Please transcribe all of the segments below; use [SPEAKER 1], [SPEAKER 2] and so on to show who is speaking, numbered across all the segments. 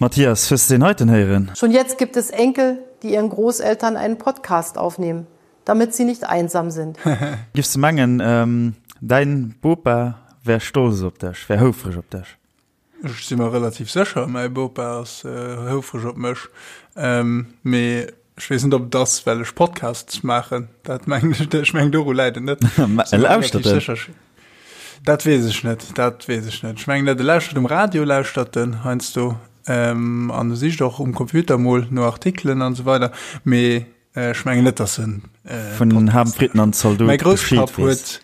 [SPEAKER 1] Mathias, hues de deen heiten héieren?
[SPEAKER 2] Schon jetzt gibt es Enkel, die ihren Großeltern einen Podcast aufnehmen, damit sie nicht einsam sind.
[SPEAKER 1] Giffs de mengen, däin Bopa wär stolz op dech, wär houfreg op dech?
[SPEAKER 3] Ech si mer relativ sécher, mäi Bopa ass houfreg op mech. Mee ech weess net, ob et ass, well ech Podcasts maachen. Dat mengen ech, ech mengen doru läit et net.
[SPEAKER 1] E lauschtert en?
[SPEAKER 3] Dat weess ech net, dat weess ech net. Ech mengen net, e lauschtert um Radio, lauschtert en heiansdo. An e sicht och um Computer mol no Artikelen an esou weider. Mee ech mengen net, dass en
[SPEAKER 1] Vun Ham Fritten an Zaldot
[SPEAKER 3] Mäi Grousspapp huet,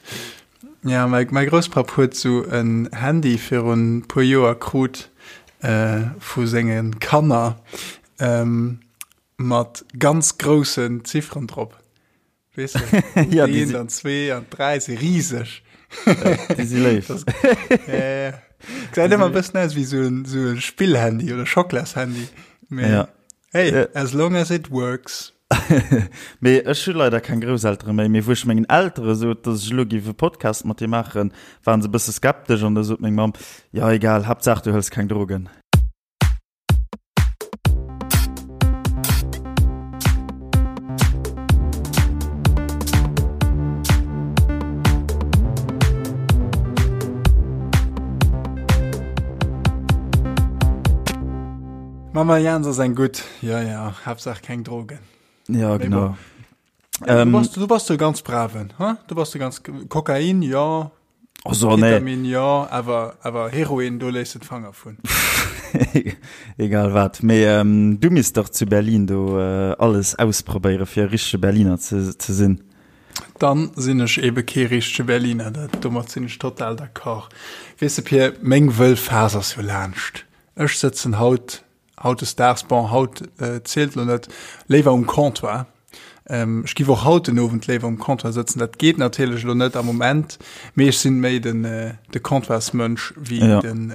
[SPEAKER 3] ja, mäi, mäi Grousspapp huet sou en Handy virun puer Joer krut vu senge Kanner mat ganz groussen Zifferen drop. Weess de?
[SPEAKER 1] Ja, déi
[SPEAKER 3] Eent
[SPEAKER 1] si-
[SPEAKER 3] an zwee an dräi si riseg.
[SPEAKER 1] Déi si léif.
[SPEAKER 3] Das, ja, ja. Gesäit ëmmer e bëssen aus wéi sou en, sou e Spillhandy oder Schockelashandy. Mee
[SPEAKER 1] Ja.
[SPEAKER 3] hey,
[SPEAKER 1] Ja.
[SPEAKER 3] as long as it works.
[SPEAKER 1] Mee ech hu leider keng Grousseltere méi. Mee wou ech mengen Eltere sot, dass ech elo géif e Podcast mat dir maachen, waren se e bësse skeptesch an da sot meng Mamm, Jo, egal, Haaptsaach du hëls keng Drogen.
[SPEAKER 3] Mama Jans ass eng gutt, jo jo, Haaptsaach keng Drogen.
[SPEAKER 1] Ja, genau.
[SPEAKER 3] Ja, du, bass, du bass de ganz braven, ha? Du bass de ganz Kokain, jo.
[SPEAKER 1] Also, nee.
[SPEAKER 3] Ketamin, jo, awer, awer Heroin, do léiss de d'Fanger vun.
[SPEAKER 1] Egal wat. Mee ähm, du misst dach zu Berlin do äh, alles ausprobéiere fir e richtege Berliner ze, ze sinn.
[SPEAKER 3] Dann sinn ech ebe kee richtege Berliner, dat, domat sinn ech total d'accord. Weess de Pir, meng wëll Phas ass jo laanscht. Ech sëtzen haut, hautdesdaags, bon haut zielt lo net, léiwer um Comptoir. Ech giff och haut den Owend léiwer um Comptoir sëtzen. Dat geet natierlech elo net am Moment, mee ech sinn méi den de Comptoirsmënsch wéi
[SPEAKER 1] Ja.
[SPEAKER 3] den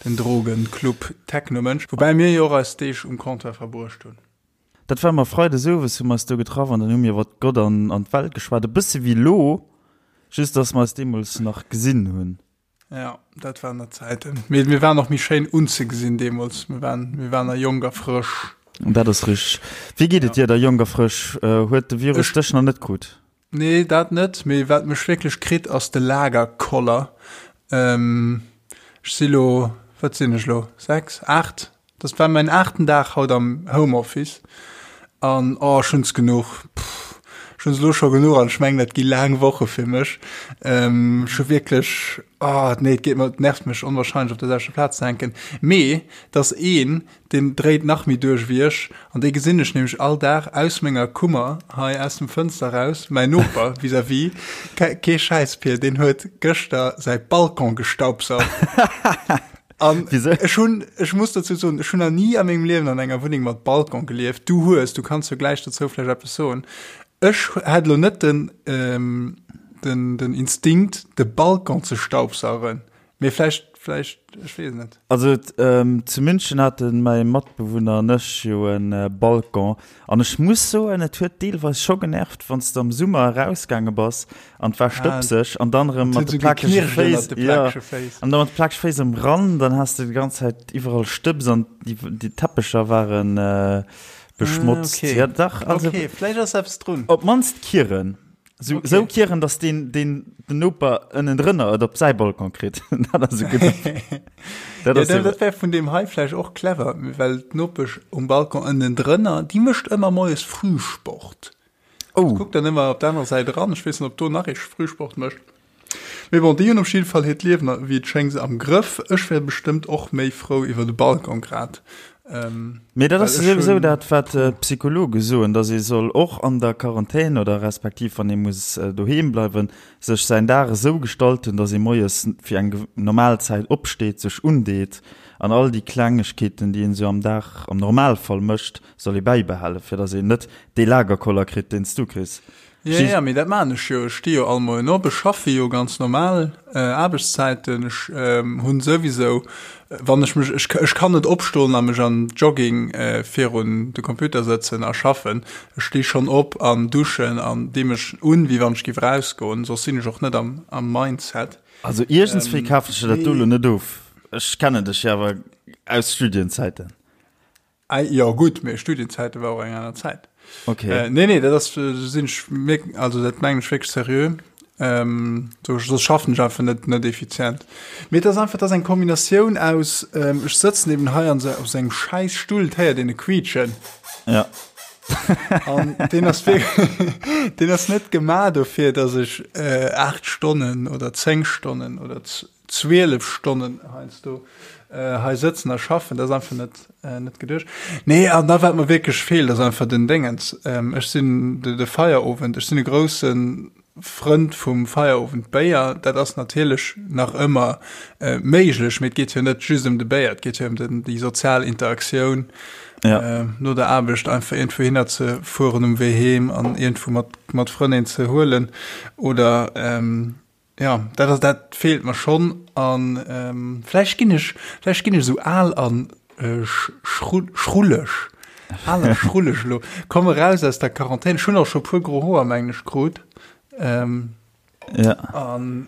[SPEAKER 3] den Drogen-Club-Techno-Mënsch. Woubäi mir jo och eis Deeg um Comptoir verbruecht hunn.
[SPEAKER 1] Dat war mer Freides owes, hu mer eis do getraff an dann hu mir iwwert Gott an an d'Welt geschwat. E bësse wéi elo, just dass mer eis deemools nach gesinn hunn.
[SPEAKER 3] Ja, dat waren nach Zäiten. Mee mir waren och méi schéin unzegesinn deemools. Mir waren, mir waren nach jonk a frësch.
[SPEAKER 1] Dat ass richteg. Wéi geet et dir da, jonk a frësch? Huet de Virus
[SPEAKER 3] Ech-
[SPEAKER 1] dech nach net krut?
[SPEAKER 3] Nee, dat net. Mee wat mech wierklech kritt, ass de Lagerkoller. Ähm, ech si lo, wat sinn ech lo, 6, 8? Dat war mäin aachten Dag haut am Homeoffice an oh, ech hunn es genuch. Pff, ech hunn es elo scho genuch an ech mengen, dat gi laang Woche fir mech. Ähm, ech hu wierklech, oh, nee, et geet mer, et nervt mech onwahrscheinlech op der selwechter Plaz ze hänken. Mee et ass een, deen dréit nach méi duerch wéi ech an dee gesinn ech nämlech all Dag aus menger Kummer hei aus dem Fënster raus, mäin Noper vis-à-vis, kee Schäiss, Pir, deen huet gëschter säi Balcon gestaubsaugt. An ech hunn, ech muss dozou soen, ech hunn nach ni a mengem Liewen an enger Wunneng mat Balcon gelieft. Du hues, du kanns jo gläich dozou vläicht eppes soen. Ech hätt elo net den, ähm, den, den Instinkt, de Balcon ze staubsaugen. Mee vläicht, vläicht, ech weess et net.
[SPEAKER 1] Also ähm, zu München hate mäi Matbewunner an ech jo e Balcon. An ech muss soen, et huet deelweis scho genervt, wann s de am Summer erausgaange bass an et war stëbseg an dann erëm mat de plakege Féiss, jo, an da mat de plakege Féiss erëm ran, dann has de déi ganz Zäit iwwerall Stëbs an déi, déi Teppecher ware beschmotzt.
[SPEAKER 3] Ah, okay.
[SPEAKER 1] Ja, dach, also.
[SPEAKER 3] Okay, vläicht ass eppes drun.
[SPEAKER 1] Op d'mannst kieren. Sou,
[SPEAKER 3] Okay.
[SPEAKER 1] sou kieren, dass den, den, den Noper ënnendrënner et op säi Balcon kritt. Dat ass e gudde.
[SPEAKER 3] Dat,
[SPEAKER 1] Dat ass
[SPEAKER 3] ja, dat wär vun deem hei vläicht och clever, well d'Nopesch um Balcon ënnendrënner, déi mécht ëmmer moies Frühsport.
[SPEAKER 1] Oh.
[SPEAKER 3] Kuckt dann ëmmer op der anerer Säit eran. Ech weess net, ob do nach ee Frühsport mécht. Mee bon, déi hunn op jidde Fall hiert Liewen, wéi et schéngt, am Grëff. Ech wär bestëmmt och méi frou iwwer de Balcon grad.
[SPEAKER 1] Ähm, Mee dat ass souwisou dat, wat d'Psychologe soen, datt ee soll och an der Quarantän oder respektiv wann ee muss doheem bleiwen, sech säin Dag esou gestalten, datt ee moies fir eng normal Zäit opsteet, sech undeet an all déi Klengegkeeten, déi een esou am Dag am Normalfall mécht, soll ee bäibehalen, fir datt een net dee Lagerkoller kritt, deen s du kriss.
[SPEAKER 3] Ja, ja, mee dat maan ech jo. Ech sti jo all Moien op, ech schaffe jo ganz normal Aarbechtszäiten. Ech hunn souwisou, wann ech mech, ech, ech kann net opstoen a mech an Jogging virun de Computer sëtzen a schaffen. Ech sti schonn op an duschen an di mech un, wéi wann ech giff erausgoen, soss sinn ech och net am, am Mindset.
[SPEAKER 1] Also iergendswéi kafen ech der dat do elo net of. Ech kennen dech jo awer aus Studienzäiten.
[SPEAKER 3] Jo gutt, mee Studienzäite war och eng aner Zäit.
[SPEAKER 1] Okay. Äh,
[SPEAKER 3] nee, nee, dat ass äh, sinn ech mir, also dat mengen ech wierklech seriö. Ähm, so, so schaffen ech einfach net net effizient. Mee et ass einfach, dat ass eng Kombinatioun aus, ähm, ech sëtzen eben hei an se, op sengem schäiss Stull, d'héiert een e quietschen.
[SPEAKER 1] Ja.
[SPEAKER 3] An deen ass wierklech, deen ass net gemaach dofir, dass ech äh, 8 Stonnen oder 10 Stonnen oder 12 Stonnen heiansdo hei sëtzen a schaffen, dat ass einfach net, net geduecht. Nee, an da wat mer wierklech feelt, ass einfach den Déngens. Ech sinn de, de Feierowend, ech sinn e grousse Frënd vum Feierowendbéier. Dat ass natierlech nach ëmmer méiglech, mee et geet jo net just ëm de Béier, et geet jo ëm den, déi sozial Interaktioun.
[SPEAKER 1] Ja.
[SPEAKER 3] No der Aarbecht einfach iergendwou hinner ze fueren um Wee heem an iergendwou mat, mat Frënn een ze huelen oder Jo, dat ass, dat feelt mer schonn. An vläicht ginn ech, vläicht ginn ech esou al an schrulleg, al a schrulleg elo. Komm eraus aus der Quarantän. Ech hunn och scho puer gro Hoer, mengen ech, krut.
[SPEAKER 1] Ja.
[SPEAKER 3] An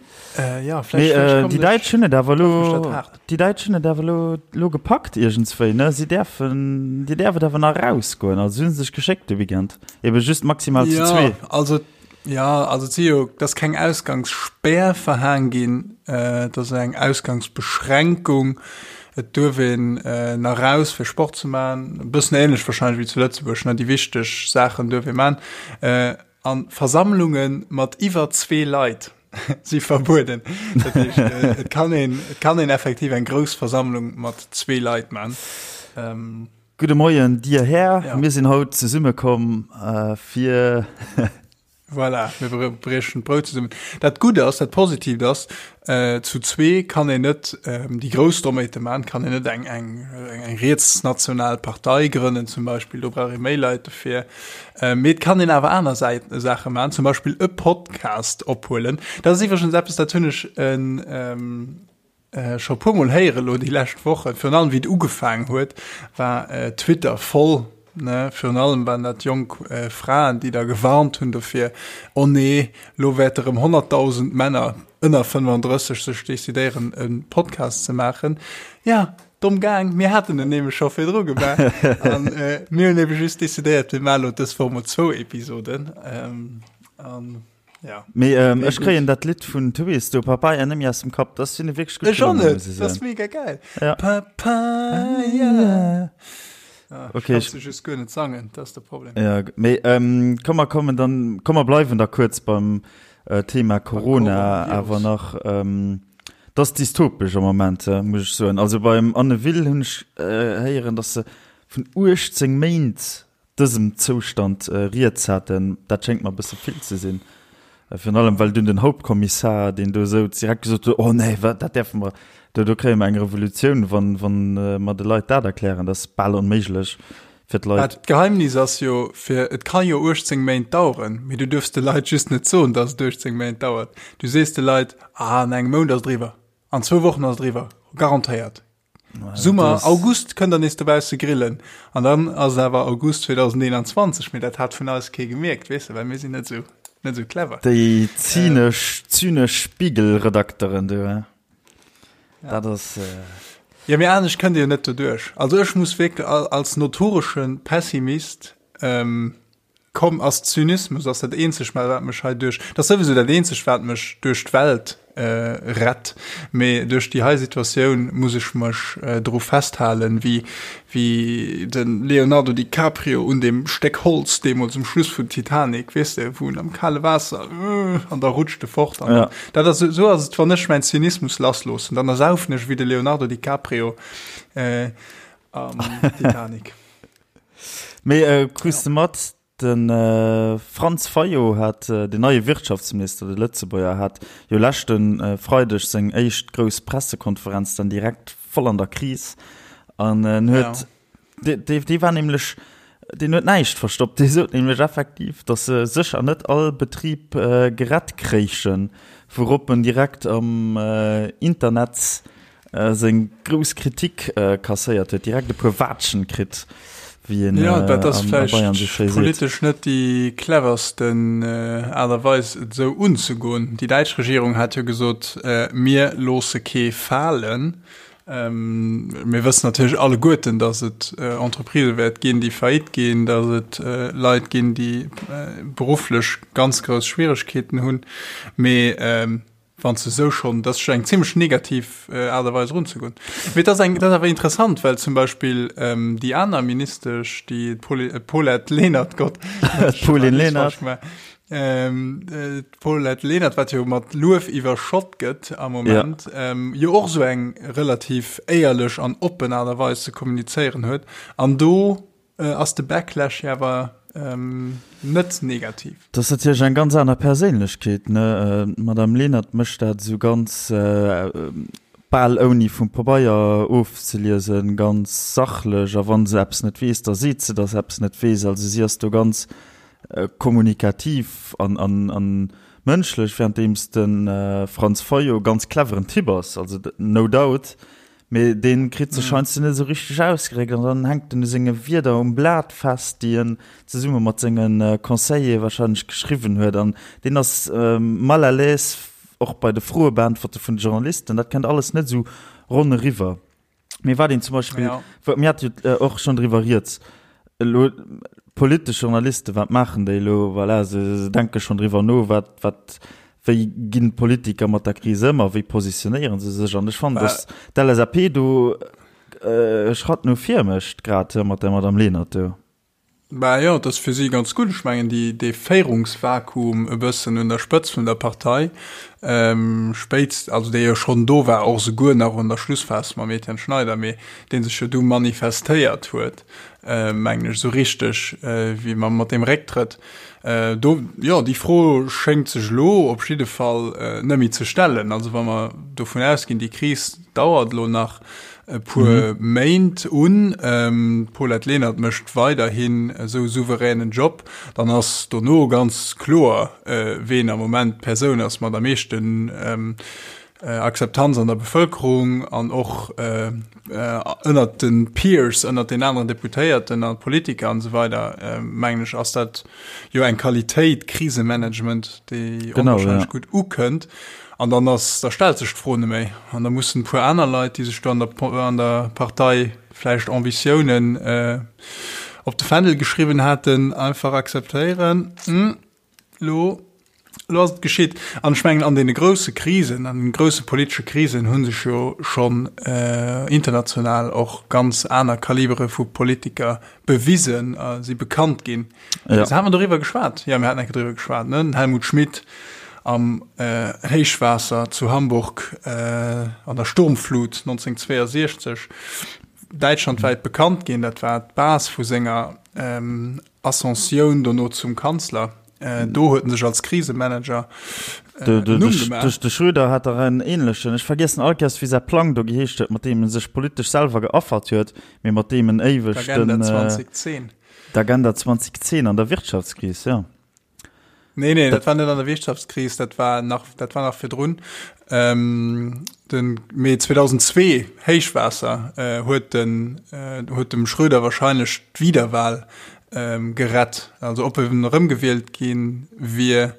[SPEAKER 3] ja, vläicht, vläicht
[SPEAKER 1] kommen ech. Déi Däitsch hunn et awer elo, déi Däitsch hunn et awer elo, elo gepackt iergendswéi, ne? Si däerfen, dir däerf et awer nach erausgoen. Also si hu sech geschéckt de Weekend. Ebe just maximal zu zwee.
[SPEAKER 3] Jo, also Jo, also et si jo, et ass keng Ausgangsspär verhaang ginn, et ass eng Ausgangsbeschränkung. Et duerf een nach raus fir Sport ze maachen, e bëssen ähnlech wahrscheinlech wéi zu Lëtzebuerg, ne, déi wichteg Saachen duerf ee maachen. A Versammlunge mat iwwer zwee Leit si verbueden. Dat heescht, et kann een, et kann een effektiv eng grouss Versammlung mat zwee Leit maachen.
[SPEAKER 1] Gudde Moien, Dir Här. Ja. Mir sinn haut zesummekomm fir.
[SPEAKER 3] Voilà, mir briechen d'Brout zesummen. Dat Gutt ass, dat Positiivt ass, äh, zu zwee kann een net ähm, déi grouss Doméite man, kann een net eng, eng, eng rietsnational Partei grënnen zum Beispill, do brauch ee méi Leit dofir. Äh, mee et kann een awer aner Säiten, Saache man, zum Beispill e Podcast ophuelen. Dat ass iwwregens eppes, dat hunn ech en, ähm, Scho puer mol héiere lo déi lescht Wochen, virun allem wéi et ugefaangen huet, war Twitter voll, ne, virun allem waren dat jonk Fraen, déi da gewarnt hunn dofir, oh nee, lo wäerte rëm 100.000 Männer ënner 35 sech decidéieren e Podcast ze maachen. Ja, domm gaang, mir haten en nämlech scho virdru gemaach an mir hunn ebe just decidéiert, mir maache lo dës Woch mol zwou Episoden an.
[SPEAKER 1] Ja. Mee ähm, ech kréien dat Lidd vun Twist do Papaya net méi aus dem Kapp. Dat sinn wierklech
[SPEAKER 3] gutt. Ech och net. Dat ass mega geil.
[SPEAKER 1] Ja.
[SPEAKER 3] Papaya. Ah, okay, ich kann just guer net sangen, dat ass de Problem.
[SPEAKER 1] Ja, mee ähm, komm mer kommen dann komm mer bleiwen da kuerz beim äh, Thema Corona awer nach ähm, das dystopesch am Moment äh, muss ich soen. Also beim Anne Will hunn ech äh, héieren, dass se vun 18 Méint dësem Zoustand rieds haten, dat schéngt mer e bësse vill ze sinn. Virun allem, well dunn den Hauptkommissar, deen do souz, direkt gesot huet, Oh nee, wat, dat däerfe mer, do, do kréie mer eng Revolutioun, wann, wann mer de Leit dat erklären. Dat ass bal onméiglech fir d'Leit.
[SPEAKER 3] D'Geheimnis ass jo, fir, et ka jo 18 Méint daueren, mee du duerfs de Leit just net soen, dass et 18 Méint dauert. Du sees de Leit, Ah, an engem Mount ass et eriwwer, an zwou Wochen ass et eriwwer, garantéiert. Summer, August kënnt der nees dobausse grillen. An dann ass et awer August 2021, mee dat hat vun eis kee gemierkt, weess de, well mir sinn net esou, net esou clever.
[SPEAKER 1] Déi zynesch, zynesch Spiegel-Redakteren do, he? Dat ass.
[SPEAKER 3] Jo, mee anescht kënnt Dir jo net doduerch. Also ech muss wierklech als notoresche Pessimist, Komm, ass Zynismus ass dat eenzegt wat mech hei duerch, dat ass souwisou dat eenzegt wat mech duerch d'Welt rett, mee duerch déi hei Situatioun muss ech mech dru festhalen, wéi wéi de Leonardo DiCaprio un deem Stéck Holz deemools um Schluss vun Titanic, weess de, wou en am kale Waasser an da rutscht e fort an dat ass, esou ass et wann ech mäin Zynismus lassloossen, dann ersaufen ech wéi de Leonardo DiCaprio am Titanic.
[SPEAKER 1] Mee äh, krus de mat, den äh, Franz Fayot hat, äh, den neie Wirtschaftsminister, de Lëtzebuerger, hat jo leschten äh, Freideg seng éischt grouss Pressekonferenz dann direkt voll an der Kris. An en huet, ja. dee, dee war nämlech, deen huet näischt verstoppt. Dee sot nämlech effektiv, datt se sécher net all Betrib äh, gerett kréichen, wourop en direkt am äh, Internet Seng grouss Kritik kasséiert huet, direkt e puer Waatschen kritt, wéi een
[SPEAKER 3] Jo, dat ass vläicht politesch net déi cleversten Aart a Weis, et esou unzegoen. Déi däitsch Regierung hat jo gesot, Mir loosse kee falen. Mir wëssen natierlech alleguerten, datt et Entreprisë wäert ginn, déi faillite ginn, datt et Leit ginn, déi berufflech ganz grouss Schwieregkeeten hunn. Mee wann s de esou schonn, dat ass scho eng zimlech negativ Aart a Weis erunzegoen. Mee et ass eng, et ass awer interessant, well zum Beispill déi aner Ministesch, déi Paulette Lenert, Gott,
[SPEAKER 1] d'Pauline Lenert.
[SPEAKER 3] D'Paulette Lenert, wat jo mat Luef iwwerschott gëtt am Moment, ja. ähm, jo och sou eng relativ éierlech an oppen Aart a Weis ze kommunizéieren huet. An do äh, ass de Backlash jo awer ähm, net negativ.
[SPEAKER 1] Dat ass natierlech eng ganz aner Perséinlechkeet, ne? Äh, D'Madame Lenert mécht dat esou ganz äh, bal ouni vum Pabeier ofzeliesen, ganz sachlech. A wa se eppes net weess, da seet se, datt se eppes net weess. Also si ass do ganz kommunikativ an, an, an mënschlech, währenddeems de Franz Fayot ganz cleveren Typ ass, also no doubt, mee dee kritt sech heiansdo net esou richteg ausgedréckt an dann hänkt en u senge Wierder um Blat fest, déi en zesumme mat senge Conseillere wahrscheinlech geschriwwen huet an deen ass mal à l'aise och bei de Froebeäntwerte vun de Journalisten, dat kënnt alles net esou ronn eriwwer. Mee wat een zum Beispill, ja. mir hat jo äh, och schon driwwer rieds, elo politesch Journalisten, wat maachen déi elo? Voilà, se, se denke schon driwwer no, wat, wat, wéi ginn d'Politiker mat der Kris ëm a wéi positionéieren se sech? An ech fannen, dass d'LSAP do äh, e Schratt no vir mécht, grad mat der Madame Lenert do.
[SPEAKER 3] Bah jo, et ass fir si ganz gutt. Ech mengen, déi, dee Féierungsvakuum e bëssen un der Spëtzt vun der Partei, spéitst, also dee jo schonn do war, och esouguer nach an der Schlussphas mam Etienne Schneider, mee dee sech jo du manifestéiert huet, mengen ech, esou richteg wéi mam, mat deem Récktrëtt do, jo, déi Fro schéngt sech elo op jidde Fall net méi ze stellen. Also wa mer dovun ausginn, déi Kris dauert elo nach, e puer Méint un. D'Paulette Lenert mécht weiderhin esou souveränen Job. Dann ass dono ganz kloer, ween am Moment d'Persoun ass mat am meeschten Akzeptanz an der Bevëlkerung an och ënnert de Peers, ënnert den aneren Deputéierten a Politiker an esou weider, mengen ech, ass dat jo eng Qualitéit, Krisemanagement, déi onwahrscheinlech gutt ukënnt. An dann ass, da stellt sech d'Fro net méi. An da mussen e puer aner Leit, déi sech do an der, an der Partei vläicht Ambitiounen op de Fändel geschriwwen haten, einfach akzeptéieren, Elo, elo ass et geschitt. An ech mengen, an deene grousse Krisen, an den grousse politesche Krisen hu sech jo schonn international och ganz aner Kalibere vu Politiker bewisen a si bekannt ginn. Ja. Hate mer doriwwer geschwat? Ja, mir haten eng Kéier doriwwer geschwat, ne? Den Helmut Schmidt am äh, Héichwaasser zu Hamburg äh, an der Sturmflut 1962 däitschlandwäit bekannt ginn. Dat war d'Base vu senger ähm, Ascensioun dono zum Kanzler. Äh, do huet en sech als Krisemanager
[SPEAKER 1] äh, de, de, Numm gemaach. De Schröder hat der en ähnlechen. Ech vergiessen all Kéiers, wéi säi Plang do geheescht huet, mat deem en sech politesch selwer geaffert huet, mee mat deem en éiweg
[SPEAKER 3] den. D'Agenda 2010.
[SPEAKER 1] D'Agenda 2010 an der Wirtschaftskris, jo.
[SPEAKER 3] Nee, nee, dat war net an der Wirtschaftskris, dat war nach, dat war nach virdrun. Ähm, den Mee 2002, Héichwaasser, äh, huet den, äh, huet dem Schröder wahrscheinlech d'Wiederwahl ähm, gerett. Also ob en erëmgewielt ginn wier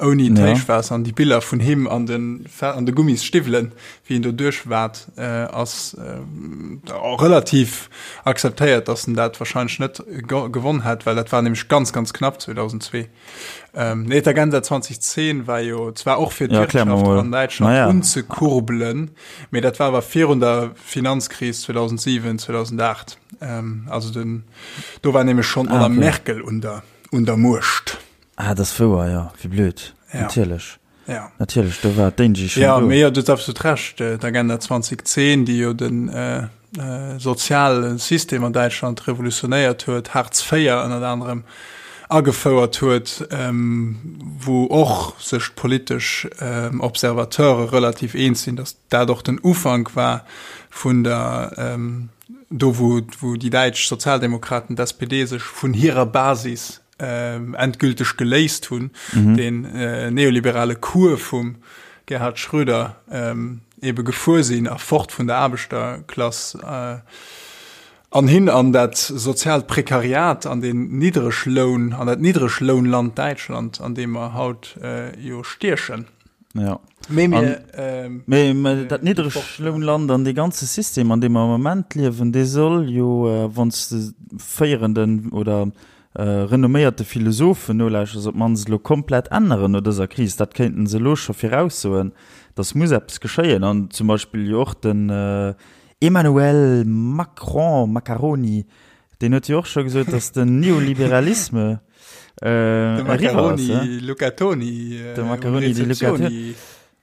[SPEAKER 3] ouni d'Héichwaasser an déi Biller vun him an den, an de Gummisstiwwelen, wéi en do duerchwaat, äh, ass äh, relativ akzeptéiert, dass en dat wahrscheinlech net gewonn hätt, well dat war nämlech ganz, ganz knapp 2002. Ähm, nee, d'Agenda 2010 war jo zwar och fir
[SPEAKER 1] d'Wirtschaft ja,
[SPEAKER 3] an Däitschland naja. unzekurbelen, mee dat war awer virun der Finanzkris 2007, 2008. Ähm, also den, do war nämlech schon ah, okay. Merkel un der, un der Muecht.
[SPEAKER 1] Ah, das wouer, ja, wie blöd. Ja. Natierlech.
[SPEAKER 3] Ja.
[SPEAKER 1] Natierlech, do war d'Angie
[SPEAKER 3] schon Ja, mee jo, du hues absolut Recht. Äh, D'Agenda 2010, déi jo den äh, äh, soziale System an Däitschland revolutionéiert huet, Hartz IV ënnert anerem agefouert huet, ähm, wou och sech d'politesch ähm, Observateure relativ eens sinn, datt dat och den Ufank war vun der ähm, do wou, wou déi däitsch Sozialdemokraten, d'SPD, sech vun hirer Basis endgülteg geléist hunn, den neoliberale Cours vum Gerhard Schröder ebe gefuer sinn a fort vun der Aarbechterklass an hin an dat soziaalt Prekariat, an den Niddregloun, an dat Niddreglounland Däitschland, an deem mer haut jo stiechen.
[SPEAKER 1] Ja.
[SPEAKER 3] Mee mir,
[SPEAKER 1] ähm, mee, mee dat Niddreglounland an dee ganze System, an deem mer am Moment liewen, dee soll jo, äh, wann s de féierenden oder äh, renomméierte Philosophen nolauschters, op d'mannst elo komplett änneren no dëser Kris. Dat kéinten se elo scho viraussoen, dass muss eppes geschéien. An zum Beispill jo och den äh, Emmanuel Macron, Macaroni, deen huet jo och scho gesot, dass den Neoliberalisme
[SPEAKER 3] Äh, de Macaroni Lucatoni.
[SPEAKER 1] Äh, de Macaroni di Lucatoni.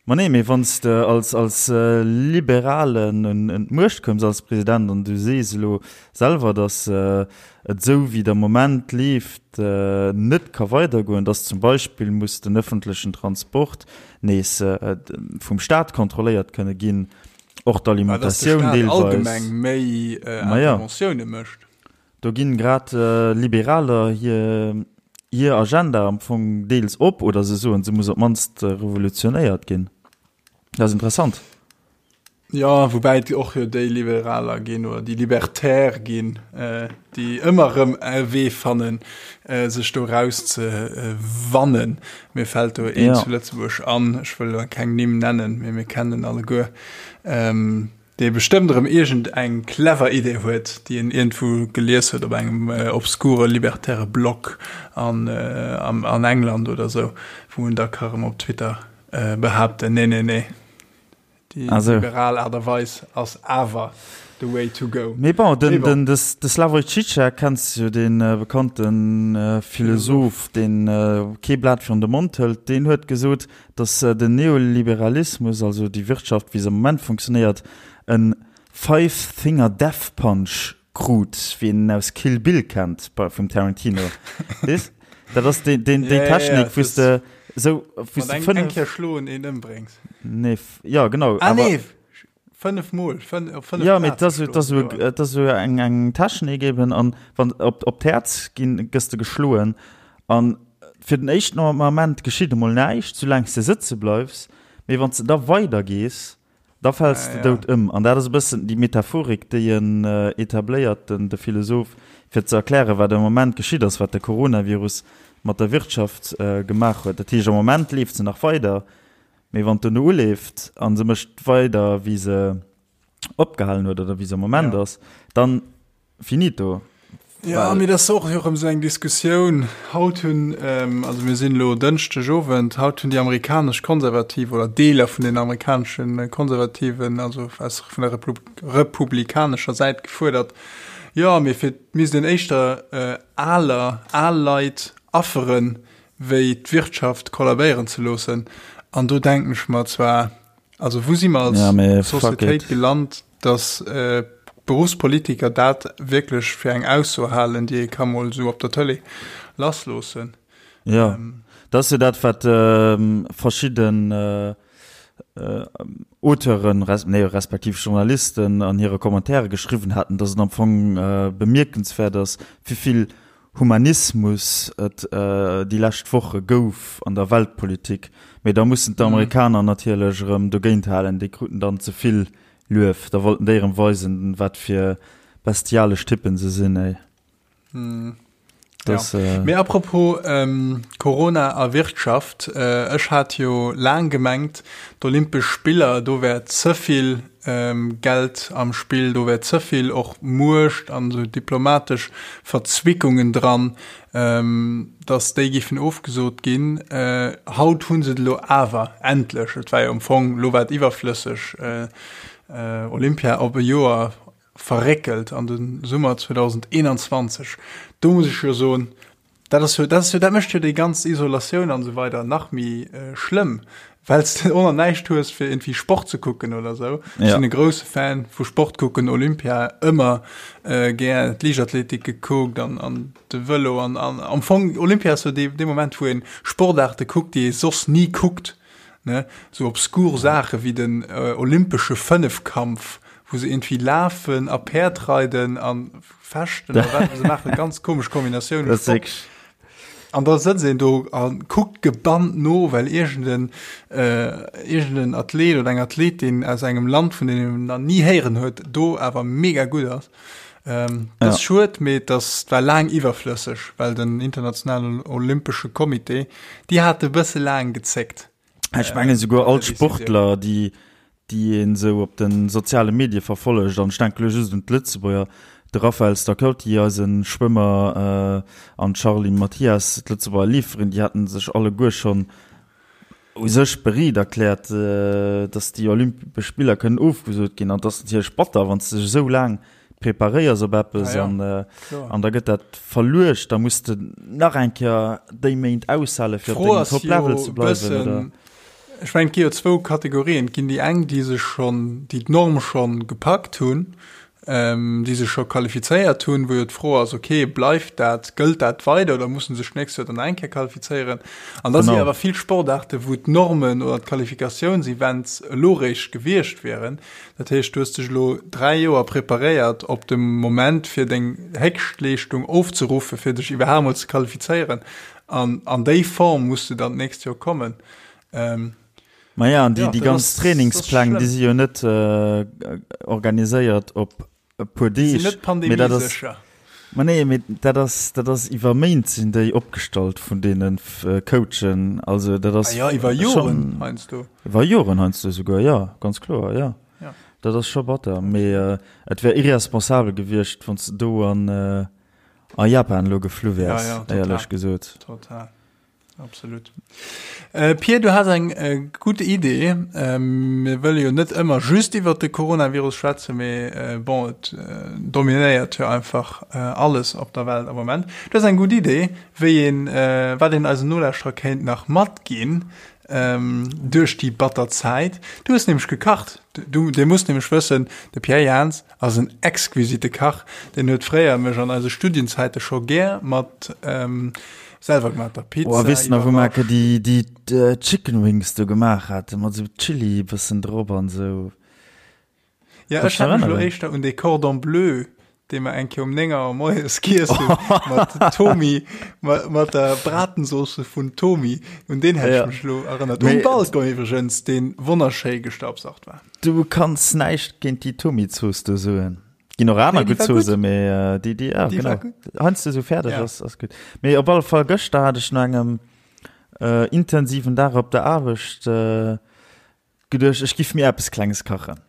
[SPEAKER 1] Ma nee, mee wann s de als, als äh, Liberalen un, un d'Muecht koums als President an du sees elo selwer, dass äh, et esou wéi der Moment leeft äh, net ka weidergoen, dass zum Beispill muss den öffentlechen Transport nees äh, vum Staat kontrolléiert kënne ginn, och d'Alimentatioun
[SPEAKER 3] deelweis. Allgemeng méi äh, Interventioune mécht.
[SPEAKER 1] Do ginn grad Liberaler hir hir Agenda am Fong deels op, oder se soen, se muss op d'mannst revolutionéiert ginn. Dat ass interessant.
[SPEAKER 3] Jo, woubäi et och jo déi Liberaler ginn, oder déi Libertaire ginn, déi ëmmer erëm e Wee fannen, sech do eraus ze wannen. Mir fält do een zu Lëtzebuerg an, ech wëll elo keng Nimm nennen, mee mir kennen en alleguer. Dee bestëmmt erëm iergend eng clever Idee huet, déi en iergendwou gelies huet op engem obskure libertäre Blog an an England oder sou, wou en da ka erëm op Twitter behaapten, nee, nee, nee, déi liberal Aart a Weis ass awer the way to go.
[SPEAKER 1] Mee bon, den, den, de Slavoj Žižek kenns du jo, dee bekannte Philosoph, deen kee Blat virun de Mond hëlt, deen huet gesot, dass den Neoliberalismus, also déi Wirtschaft wéi se am Moment funktionéiert, e Five-Finger Death Punch krut, wéi een en aus Kill Bill kennt vum Tarantino. Weess? Dat ass déi, déi, déi Technik, wou s de
[SPEAKER 3] esou, wou s de 5. Eng Kéier schloen, een ëmbréngs.
[SPEAKER 1] Nee, jo, genau.
[SPEAKER 3] Ah, nee, 5 mol, 5, op 5
[SPEAKER 1] Ja, mee et ass, et ass esou, et ass esou eng, eng Technik eben, an wann op, op d'Häerz ginn, gëss de geschloen an fir den éischten Ament geschitt emol näischt, soulaang s de sëtze bleifs, mee wann s de da weider gees, da fäls de dout ëm. An dat ass e bëssen déi Metaphorik, déi en etabléiert, den, de Philosoph, fir ze erklären, wat am Moment geschitt ass, wat de Coronavirus mat der Wirtschaft gemaach huet. Dat heescht, am Moment leeft se nach weider, Mee wann d'duerno uleeft a se mécht weider, wéi se opgehalen huet oder wéi se am Moment ass, dann finito.
[SPEAKER 3] Jo, mee dat ass och erëm esou eng Diskussioun. Haut hunn, also mir sinn elo Dënschdeg Owend, haut hunn déi amerikanesch Konservativ oder Deeler vun den amerikanesche Konservativen, also aus vun der republikanescher Säit gefuerdert, jo, mee fir misst een éischter aler, al Leit afferen, wéi d'Wirtschaft kollabéieren ze loossen. An do denken ech mer zwar, also wou si mer als
[SPEAKER 1] ja,
[SPEAKER 3] Societéit gelant, dass äh, Berufspolitiker dat wierklech fir eng Ausso halen, déi ee ka mol esou op der Tëlee lassloossen.
[SPEAKER 1] Ja, ähm, dat ass jo dat, wat äh, verschidden äh, äh, Auteuren, res, nee, respektiv Journalisten an hire Kommentare geschriwwen haten, dass et am Fong äh, bemierkenswäert ass, wéi vill Humanismus et déi lescht Woche gouf an der Weltpolitik, mee da mussen d'Amerikaner natierlech erëm dogéint halen, déi kruten dann ze vill Luef, da wollten déi erëm weisen, wat fir bestialesch Typpen se sinn, ey.
[SPEAKER 3] Das, ja. Äh, Mee apropos ähm, Corona a Wirtschaft, äh, ech hat jo laang gemengt, d'Olympesch Spiller, do wär ze vill Geld am Spill, do wär ze vill och Muecht an esou diplomatesch Verzwickungen dran, datt déi géifen ofgesot ginn. Haut hu se et elo awer endlech, et war jo am Fong, elo war et iwwerflësseg, Olympia op e Joer verréckelt an de Summer 2021. Do muss ech jo soen, Dat ass jo, dat ass jo, dat mécht jo déi ganz Isolatioun an esou weider nach méi schlëmm, well s de och nach näischt hues fir iergendwéi Sport ze kucken oder esou. Ech sinn e grousse Fan vu Sport kucken, Olympia ëmmer gär d'Liichtathletik gekuckt an an de Vëlo an an am Fong Olympia ass jo dee dee Moment wou een Sportaarte kuckt, déi ee soss ni kuckt, ne, sou obskur Saache wéi den olympesche Fënnefkampf, wou se iergendwéi lafen a Päerd reiden an Fechten oder wat se maachen, ganz komesch Kombinatioun.
[SPEAKER 1] Das ist
[SPEAKER 3] An da sëtzt een do a kuckt gebannt no, well iergenden äh, iergenden Athlet oder eng Athletin aus engem Land, vun deem een nach ni héieren huet, do awer mega gutt ass. Ähm, dat ass ja. schued, mee dat war laang iwwerflësseg, well den internationalen Olympesche Comité, déi hate bësse laang gezéckt.
[SPEAKER 1] Ech mengen souguer all d'Sportler, déi déi een esou op de soziale Medie verfollegt, an ech denke lo just un d'Lëtzebuerger, de Raphaël Stacchetti, eise Schwëmmer, an d'Charline Mathias, d'Lëtzebuerger Leeferin, déi haten sech alleguer schonn u sech bereet erkläert, datt déi Olympesch Spiller kënnen ofgesot ginn. An et ass natierlech batter, wann s de dech esou laang preparéiers op eppes an an da gëtt dat verluecht, da muss de nach eng Kéier déi Méint aushale fir op dengem Top-Level ze bleiwen, oder?
[SPEAKER 3] Ech mengen, et gi jo zwou Kategorien. Et ginn déi eng, déi sech schonn, déi d'Norm schonn gepackt hunn, déi sech scho qualifizéiert hunn, wou jo d'Fro ass, okay, bleift dat, gëllt dat weider oder musse sech d'nächst Joer dann nach eng Kéier qualifizéieren? An da si awer vill Sportaarte wou d'Normen oder d'Qualifikatiounsevents elo réischt gewiescht wieren. Dat heescht, du hues dech elo 3 Joer preparéiert op de Moment fir deng Héchstleeschtung ofzeruffen, fir dech iwwerhaapt mol ze qualifizéieren. An an déi Form muss du dann d'nächst Joer kommen.
[SPEAKER 1] Ähm, Maja, an déi, ja, déi ganz Trainingspläng, déi si jo net äh, organiséiert op e puer Deeg.
[SPEAKER 3] Sinn net pandemiesécher.
[SPEAKER 1] Ma nee, mee dat ass, dat ass iwwer Méint sinn déi opgestallt vun deene Coachen. Also dat ass.
[SPEAKER 3] Ah ja, iwwer Joren heiansdo.
[SPEAKER 1] Iwwer Joren heiansdo souguer, jo, ganz kloer, jo. Ja. Dat ass scho batter. Mee äh, et wär irresponsabel gewiescht, wann s de do an, äh, a Japan elo geflu wäers, ja, ja, éierlech gesot.
[SPEAKER 3] Total. Absolut. Äh, Pir, du has eng äh, gutt Idee. Ähm, mir wëlle jo net ëmmer just iwwer de Coronavirus schwätzen, mee äh, bon, et äh, dominéiert jo einfach äh, alles op der Welt am Moment. Du has eng gutt Idee, wéi een, äh, wat een eisen Nolauschterer kéint nach matginn ähm, duerch déi batter Zäit. Du hues nämlech gekacht. Du, Dir musst nämlech wëssen, de Pierre Jans Ass en exquisite Kach, deen huet fréier mech an eise Studienzäite scho gär mat selwergemaachter
[SPEAKER 1] Pizza Oh, weess de nach, wou mer iwwerrascht. déi, déi Chicken Wings do gemaach haten, mat esou Chili bëssen drop an esou?
[SPEAKER 3] Ja, ech hat mech elo éischter un dee Cordon Bleu, dee mer eng Kéier um 9 Auer moies giess hunn, mat Thomi, mat der Bratensauce vun Thomi, un deen hätt ech mech elo erënnert. Um Balcon iwwregens, dee wonnerschéi gestaubsaugt war.
[SPEAKER 1] Du kanns näischt géint déi Tomi-Zooss do soen. Ginn och aner gutt Zoosse, mee déi, déi, ja, genau. Heiansdo esou fäerdeg ass, ass gutt. Mee op alle Fall, gëschter hat ech no engem intensiven Dag op der Aarbecht geduecht, ech giff mir eppes Klenges kachen.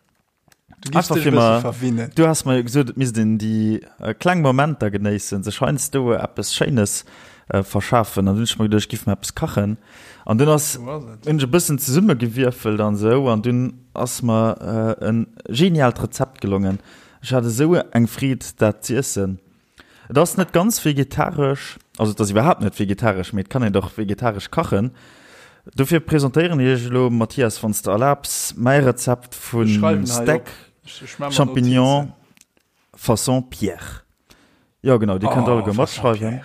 [SPEAKER 3] Du giffs dech e bësse verwinnen.
[SPEAKER 1] Du has mer jo gesot, et misst een déi kleng Momenter genéissen, sech heiansdo eppes Schéines verschafen. An dunn hunn ech mer geduecht, ech giff mer eppes kachen. An dunn ass, hunn ech e bëssen zesummegewierfelt an esou, an dunn ass mer e geniaalt Rezept gelongen. Ech hat esou eng Freed, dat z'iessen. Et ass net ganz vegetaresch, also et ass iwwerhaapt net vegetaresch, mee et kann een dach vegetaresch kachen. Dofir presentéieren ech iech elo, Mathias, wann s de erlaabs, mäi Rezept vu Steak Champignon façon Pierre. Jo genau, dir kënnt alleguer matschreiwen.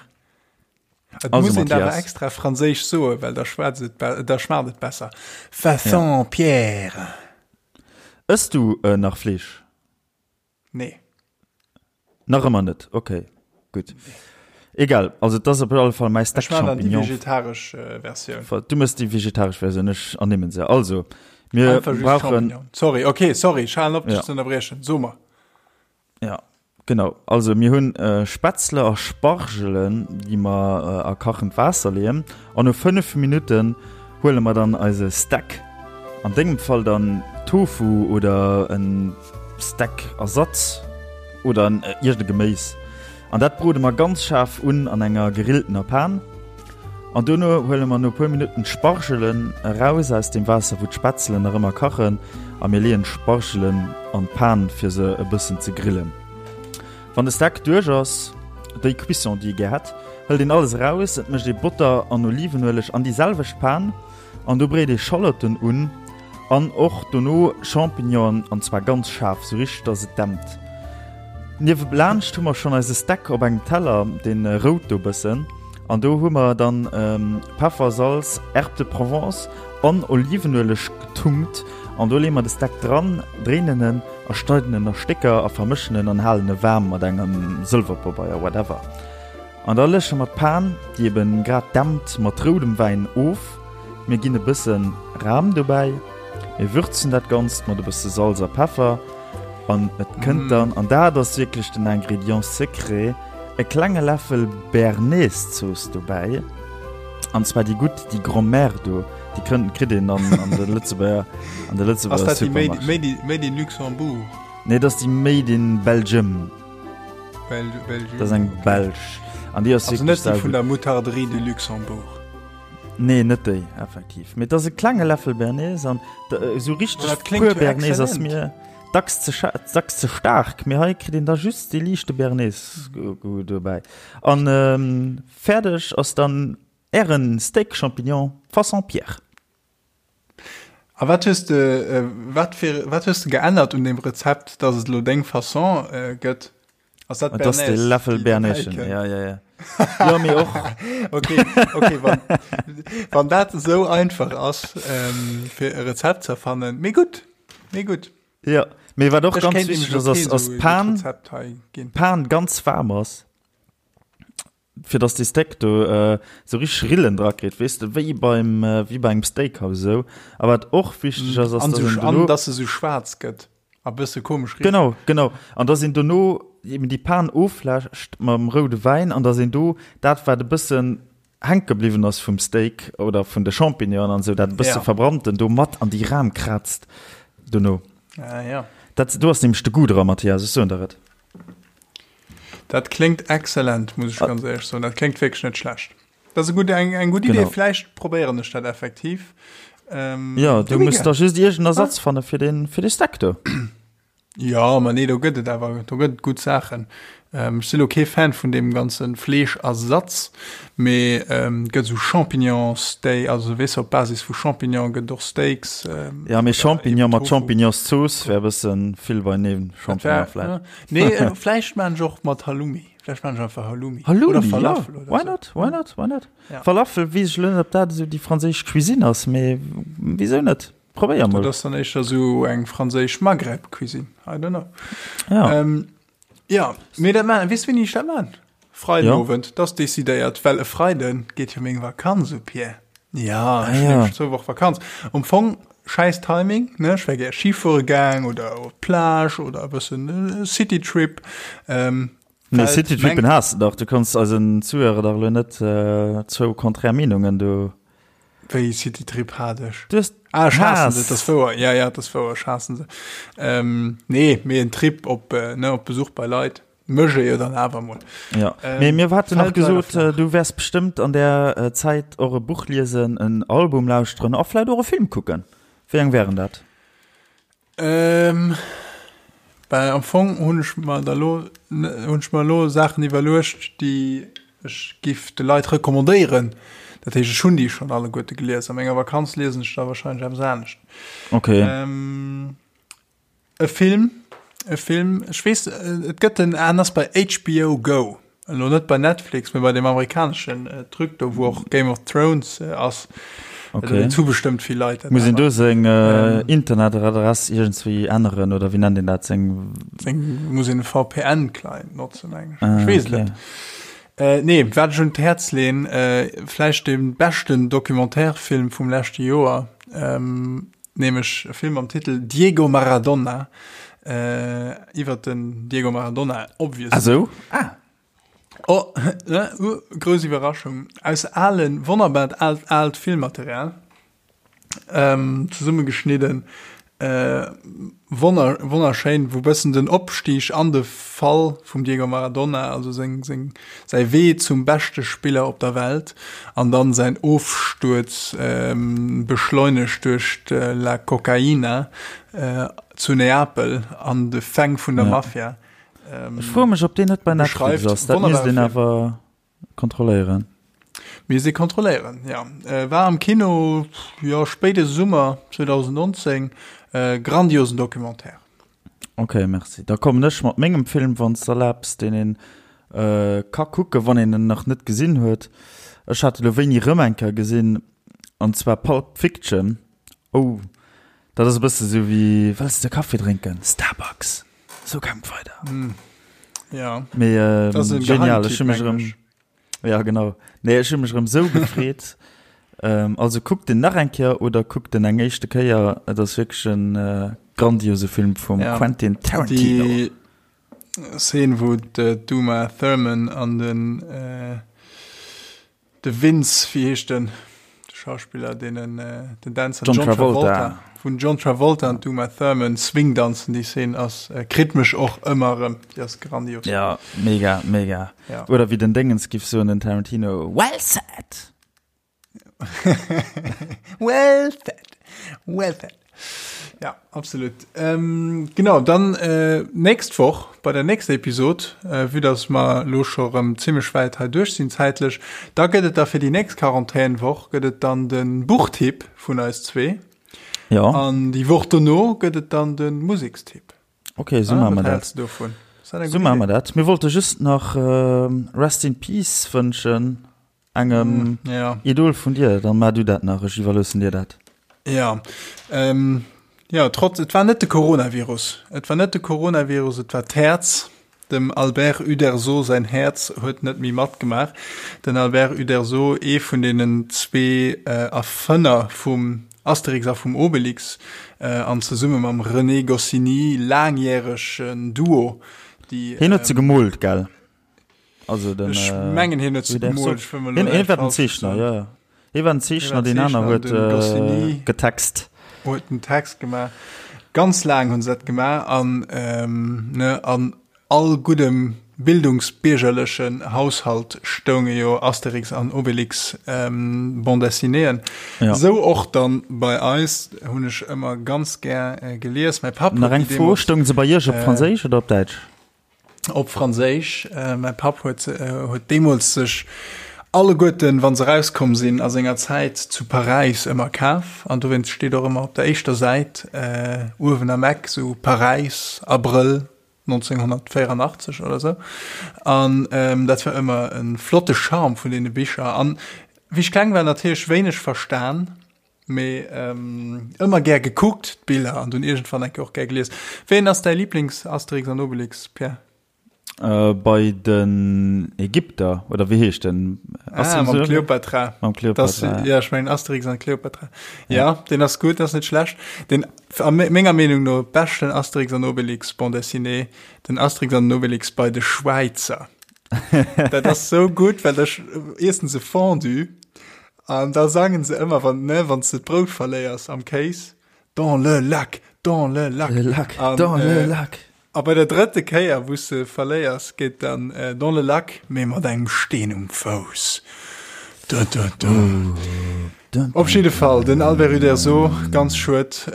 [SPEAKER 3] Et also, muss een awer extra franséisch soen, well da schwätzt et, da schmaacht et besser. Façon ja. Pierre.
[SPEAKER 1] Ëss du äh, nach Fleesch?
[SPEAKER 3] Nee.
[SPEAKER 1] Nach ëmmer net, okay, gutt. Egal, also et ass op alle Fall mäi
[SPEAKER 3] Steak Champignon. Ech maachen déi vegetaresch äh, Versioun.
[SPEAKER 1] Du mëss déi vegetaresch Versioun, ech ernimmen se. Also, mir Einfach brauchen.
[SPEAKER 3] Sorry, okay, sorry, ech halen op, dech ja. ze ënnerbriechen. So mer.
[SPEAKER 1] Ja, genau. Also mir hunn Spätzle a Spargelen, déi mer a kachend Waasser leeën. An no 5 Minutten huele mer dann eise Stack, an dengem Fall dann Tofu oder en Stack-Ersatz oder iergend e Geméis. An dat brode mer ganz schaarf un an enger gerilltener Pan. An dono huele mer no puer Minutten d'Spargelen eraus aus dem Waasser wou d'Spätzelen nach ëmmer kachen a mir leeën d'Spargelen an d'Pan fir se e bëssen ze grillen. Wann de Steak duerch ass, déi Cuisson déi ee gär hätt, hëlt een alles eraus, et mécht ee Botter an Olivenueleg an déi selwecht Pan an do bréit ee Schallotten un An och dono Champignonen, an zwar ganz schaarf, sou richteg dass et dämpt. Niewelaanscht hu mer schonn eise Steak op engem Teller, deen rout do bëssen, an do hu mer dann Peffer, Salz, Herbes de Provence an Olivenueleg getunkt an do leeë mer de Steak dran, dréinen en a schneiden en a Stécker a vermëschen en an halen e waarm mat engem Sëlwerpabeier, whatever. An da lësche mer d'Pan, déi eben grad dämpt, mat roudem Wäin of. Mir ginn e bësse Ram dobäi, mir würzen dat Ganzt mat e bësse Salz a Peffer an et kënnt dann, an dat ass wierklech den Ingrédient secret, e klenge Läffel Béarnaise-Zooss dobäi, an zwar déi gutt, déi Grand-mère do, Déi kënnt, kritt een an, an de Lëtzebuerger, an de Lëtzebuerger
[SPEAKER 3] Ass dat déi Made, Made, Made in Luxembourg?
[SPEAKER 1] Nee, dat ass déi Made in Belgium.
[SPEAKER 3] Bel Belgium.
[SPEAKER 1] Dat ass eng belsch. An déi ass
[SPEAKER 3] Also net déi vun der Moutarderie de Luxembourg.
[SPEAKER 1] Nee, net déi, effektiv. Mee et ass e klenge Läffel Bernays an esou richteg pur Bernays ass mir dacks ze, dacks ze staark. Mee hei kritt een da just dee liichte Bernays-Goût dobäi. An fäerdeg ass dann ären Steak Champignon façon Pierre.
[SPEAKER 3] A wat hues de, wat fir, wat hues de geännert un deem Rezept, dass et elo deng Façon gëtt?
[SPEAKER 1] Ass dat Bernays? Dat ass de Läffel Bernays, ja, ja, ja.
[SPEAKER 3] Jo, mee och. Okay, okay, wann, wann dat esou einfach ass, fir e Rezept ze erfannen, mee gutt, mee gutt.
[SPEAKER 1] Jo, mee wat och ganz wichteg ass, ass, ass d'Pan, d'Pan ganz waarm ass. fir dass dee Steak do esou richteg Rillen dra kritt, weess de, wéi beim, wéi bei engem Steakhouse esou. A wat och wichteg ass, ass,
[SPEAKER 3] dass een dono. An dass se esou schwaarz gëtt a bësse komesch
[SPEAKER 1] richt. Genau, genau. An dass een dono eben déi Pan ofläscht mam roude Wäin an dass een do dat, wat e bëssen hänke bliwwen ass vum Steak oder vun de Champignonen an esou, dat e bësse verbrannten do mat an déi Ram kraazt dono.
[SPEAKER 3] Ah, ja.
[SPEAKER 1] Dat, do ass nämlech de Goût dra, Mathias, ech soen der et.
[SPEAKER 3] Dat kléngt excellent, muss ech ganz éierlech soen. Dat kléngt wierklech net schlecht. Dat ass e gutt, eng, eng gutt Idee. Vläicht probéieren ech dat effektiv.
[SPEAKER 1] Ähm, ja, du muss da just iergend Ersatz ah. fanne fir den, fir de Stack do.
[SPEAKER 3] Ja, ma nee, do gëtt et awer, do gëtt et gutt Saachen. Ähm, ech si lo kee Fan vun deem ganze Fleeschersatz, mee ähm, gëtt esou Champignon-Steak, also weess op Basis vu Champignon gëtt och Steaks.
[SPEAKER 1] Ähm, ja, mee Champignon mat Champignonszooss wär e bëssen vill beineen. Champignon
[SPEAKER 3] vläicht. Nee, äh, vläicht maan ech och mat Halloumi. Vläicht maan ech einfach Halloumi.
[SPEAKER 1] Halloumi, oder Falafel ja. oder Why not? Why not? Why not? Ja. Falafel weess ech lo net, ob dat esou déi franséisch Cuisine ass, mee wisou net? Probéier mol.
[SPEAKER 3] Dat ass dann éischter esou eng franséisch Maghreb-Cuisine. I don't know.
[SPEAKER 1] Ja.
[SPEAKER 3] Ähm, ja, mee dat maan, weess wéini ech dat maan? Freidenowend, ja. Dat ass decidéiert, well e Freiden geet jo meng Vakanz u, Pierre. Ja, ech hunn nämlech zwou Woche Vakanz. Am Fong schäiss Timing, ne? Ech wär gär Ski fuere gaang oder op d'Plage oder e bëssen Citytrip.
[SPEAKER 1] Ähm, Nee, Citytrippen has de dach. Du kanns eisen Zuhörer dach elo net zwou konträr Meenungen do.
[SPEAKER 3] Wéi Citytrip hat ech?
[SPEAKER 1] Du hues
[SPEAKER 3] Ah, ech haassen se, dat ass wouer. Ja, ja, dat ass wouer, ech haassen se. Ähm, nee, mee en Trip op, ne, op Besuch bei Leit. Mécht ee jo dann awer mol.
[SPEAKER 1] Ja, mee mir haten nach gesot, du wäers bestëmmt an där Zäit och e Buch liesen, en Album lauschteren a vläit och e Film kucken. Wéi eng wären dat?
[SPEAKER 3] Ähm, well am Fong hunn ech mer da lo, hunn ech mer elo Saachen iwwerluecht, déi ech giff de Leit recommandéieren. Dat heescht, ech hunn déi schonn alleguerte gelies. A menger Vakanz liesen ech da warscheinlech eppes anescht.
[SPEAKER 1] Okay.
[SPEAKER 3] Ähm, E Film, e Film, ech weess, et gëtt en, en ass bei HBO Go, elo net bei Netflix, mee bei deem amerikaneschen Truc do, wou och Game of Thrones ass.
[SPEAKER 1] Okay.
[SPEAKER 3] Dat hu bestëmmt vill Leit.
[SPEAKER 1] Muss een do seng Internetadress iergendswéi änneren oder wéi nennt een dat? Seng.
[SPEAKER 3] Seng, muss een e VPN-Client notzen, meng ech. Ech weess et net. Nee, wat ech un d'Häerz leen, vläicht dee beschten Documentaire-Film vum leschte Joer, Nämlech e Film mam Titel Diego Maradona, iwwert den Diego Maradona, obviously.
[SPEAKER 1] Ah sou? Ah.
[SPEAKER 3] Oh, ne, uh, grouss Iwwerraschung. Aus alen, wonnerbart aalt, aalt Filmmaterial ähm, zesummegeschnidden. Äh, wonner, wonnerschéin, wou bëssen den Opstieg an de Fall vum Diego Maradona, also seng, seng, säi Wee zum beschte Spiller op der Welt an dann säin Ofstuerz, beschleunegt duerch d'La Cocaina zu Neapel an de Fäng vun der Mafia,
[SPEAKER 1] Ech froe mech, ob deen net bei Netflix ass. Dat misst een awer kontrolléieren.
[SPEAKER 3] Misst ee kontrolléieren, jo. War am Kino, jo, spéide Summer 2019. Grandiosen Documentaire.
[SPEAKER 1] Ok, merci. Da kommen ech mat mengem Film, wann s de erlaabs, deen een ka kucken, wann een en nach net gesinn huet. Ech hat e lo wéini rëm eng Kéier gesinn, an zwar Pulp Fiction. Oh, dat ass e bësse sou wéi, Wëlls de Kaffi drénken? Starbucks! Sou gaang weider.
[SPEAKER 3] Ja.
[SPEAKER 1] Mee genial, ech hu mech erëm. Ja genau. Nee, ech hu mech erëm sou gefreet. Ähm, also kuckt den nach eng Kéier oder kuckt den eng éischte Kéier. Et ass wierklech en äh, grandiose Film vum
[SPEAKER 3] ja.
[SPEAKER 1] Quentin Tarantino.
[SPEAKER 3] Déi Szene, wou d'Uma Thurman an den äh, de Vince, wéi heescht den? Schauspiller, deenen den Dänzer John Travolta. Vun John Travolta an d'Uma Thurman Swing danzen, déi Szene ass, kritt mech och ëmmer erëm, déi ass grandios.
[SPEAKER 1] Ja, mega, mega. Ja. Oder wéi den Déngens giff soen, den Tarantino, Well said!
[SPEAKER 3] Well said, well said. Ja, absolut. Ähm, genau, dann äh, nächst Woch bei der nächster Episod, äh, vue dass mer lo scho rëm zimmlech wäit hei duerch sinn zäitlech, da gëtt et da fir déi nächst Quarantänwoch gëtt et dann de Buchtipp vun eis zwee.
[SPEAKER 1] Ja.
[SPEAKER 3] An déi Woch dono gëtt et dann de Musekstipp.
[SPEAKER 1] Okay, so ah, machen wir dat.
[SPEAKER 3] Davon?
[SPEAKER 1] So machen wir dat. Mir wollte just nach äh, Rest in Peace wënschen. Engem mm,
[SPEAKER 3] ja.
[SPEAKER 1] Idol vun dir, dann mar du dat nach, ech iwwerloossen dir dat.
[SPEAKER 3] Ja, ähm, ja trotz, et war net de Coronavirus. Et war net de Coronavirus, et war d'Häerz. Dem Albert Uderzo säin Häerz huet net méi matgemaach. Den Albert Uderzo, ee vun deenen zwee äh, Erfënner vum Asterix a vum Obelix, äh, an zesumme mam René Goscinny laangjäregen Duo,
[SPEAKER 1] déi. Hien huet se gemoolt, gell?
[SPEAKER 3] Also den, Ech äh, mengen hien huet se gemoolt.
[SPEAKER 1] Ech wëll mol elo Hien war den Zeechner, ja, ja. Hie war den Zeechner, deen aner huet äh, getext.
[SPEAKER 3] Huet den Text gemaach. Ganz laang hunn se dat gemaach an, ähm, ne, an all guddem bildungsbiergerlechen Haushalt stounge jo Asterix an Obelix ähm, Bande dessinéeën.
[SPEAKER 1] Ja.
[SPEAKER 3] Sou och dann bei eis hunn ech ëmmer ganz gär äh, gelies. Mäi Papp
[SPEAKER 1] Nach eng Fro, stoungen se bei Iech op äh, Franséisch oder op Däitsch?
[SPEAKER 3] Op Franséisch. Mäi Papp huet huet deemools sech alleguerten, wa se erauskomm sinn, a senger Zäit zu Paräis ëmmer kaf. An dowéinst steet och ëmmer op der éischter Säit uewen am Eck sou Paräis, Abrëll 1984 oder sou. An dat war ëmmer e flotte Charme vun deene Bicher. An wéi ech kleng war, natierlech wéineg verstan. Mee ëmmer gär gekuckt d'Biller an dunn iergendwann eng Kéier och gär gelies. Wéi ass däi Lieblings-Asterix an Obelix, Pierre?
[SPEAKER 1] Bei den Ägypter, oder wéi heescht den?
[SPEAKER 3] Ah, mam Kleopatra.
[SPEAKER 1] Mam Kleopatra.
[SPEAKER 3] Ja, ech mengen Asterix an Kleopatra. Ja, deen ass gutt, ass net schlecht. Den a menger Meenung no beschten Asterix an Obelix Bande dessinée, den Asterix an den Obelix bei de Schwäizer. Dat ass sou gutt, well da iessen se Fondue An da sangen se ëmmer, wann, ne, wann s de d'Brout verléiers am Kéis, Dans le lac, dans le lac.
[SPEAKER 1] Le lac, an, dans le lac.
[SPEAKER 3] A bei der drëtte Kéier, wou s de verléiers, geet dann Dans le lac, mee mat engem Steen um Fouss. Dun, dun, dun. Dun, Op jidde Fall, den Albert Uderzo, ganz schued,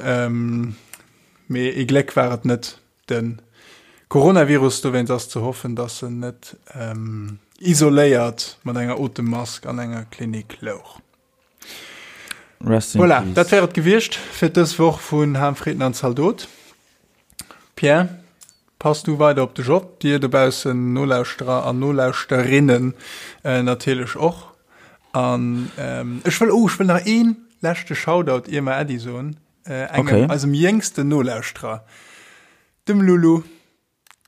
[SPEAKER 3] mee ee Gléck war et net. De Coronavirus, dowéinst ass ze hoffen, datt en net isoléiert mat enger Otemmask an enger Klinik louch.
[SPEAKER 1] Rest in
[SPEAKER 3] Voilà,
[SPEAKER 1] peace.
[SPEAKER 3] dat wär et gewiescht fir dës Woch vun Ham, Fritten an Zaldot. Pierre, pass du weider op dech op, dir dobaussen Nolauschterer an Nolauschterinnen natierlech och. An ech wëll, oh, ech wëll nach ee leschte Shoutout, ier mer Äddi soen. Äh, engem,
[SPEAKER 1] okay.
[SPEAKER 3] eisem jéngsten Nolauschterer, dem Lulu.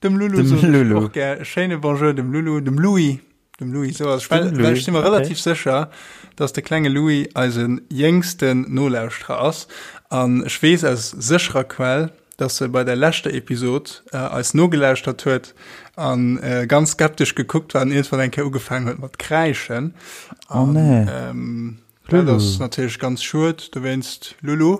[SPEAKER 3] Dem Lulu,
[SPEAKER 1] dem Lulu.
[SPEAKER 3] Och gär. Schéine Bonjour dem Lulu, dem Louis. Dem Louis, so ass. Well, well ech si mer relativ okay. sécher, dass de klenge Louis eise jéngsten Nolauschterer ass. An ech weess aus sécherer Quell, dass e bei der leschter Episod äh, eis nogelauschtert huet an äh, ganz skeptesch gekuckt war an iergendwann eng Kéier ugefaangen huet mat kräischen.
[SPEAKER 1] Oh nee.
[SPEAKER 3] Ähm, Dat ass natierlech ganz schued dowéinst, Lulu.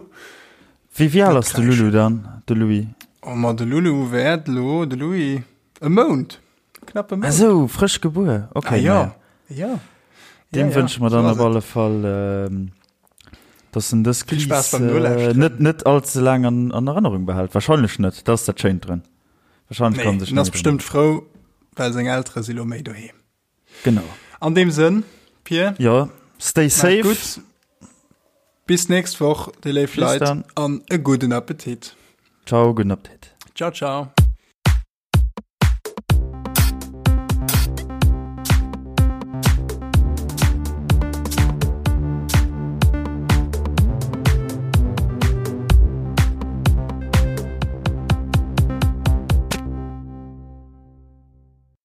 [SPEAKER 1] Wéi wéi al ass de Lulu dann, de Louis?
[SPEAKER 3] Oh ma de Lulu wäert elo, de Louis, e Mount, knapp e Mount.
[SPEAKER 1] Ah sou, frësch gebuer, okay.
[SPEAKER 3] Ah jo, jo.
[SPEAKER 1] Deem wënsche mer dann op alle Fall, dass en dës
[SPEAKER 3] Vill
[SPEAKER 1] Kris
[SPEAKER 3] Spaass beim Nolauschteren.
[SPEAKER 1] net net all ze laang an an Erënnerung behält. Wahrscheinlech net, dat ass dat Schéint drun. Wahrscheinlech
[SPEAKER 3] Nee,
[SPEAKER 1] kann en sech
[SPEAKER 3] en ass
[SPEAKER 1] net méi drun
[SPEAKER 3] bestëmmt frou, well seng Eltere si lo méi doheem.
[SPEAKER 1] Genau.
[SPEAKER 3] An deem Sënn, Pir.
[SPEAKER 1] Jo, stay safe.
[SPEAKER 3] Gutt. Bis nächst Woch, déi léif
[SPEAKER 1] Bis
[SPEAKER 3] Leit,
[SPEAKER 1] dann.
[SPEAKER 3] an e gudden Appetit.
[SPEAKER 1] Ciao, gudden Appetit.
[SPEAKER 3] Ciao, ciao.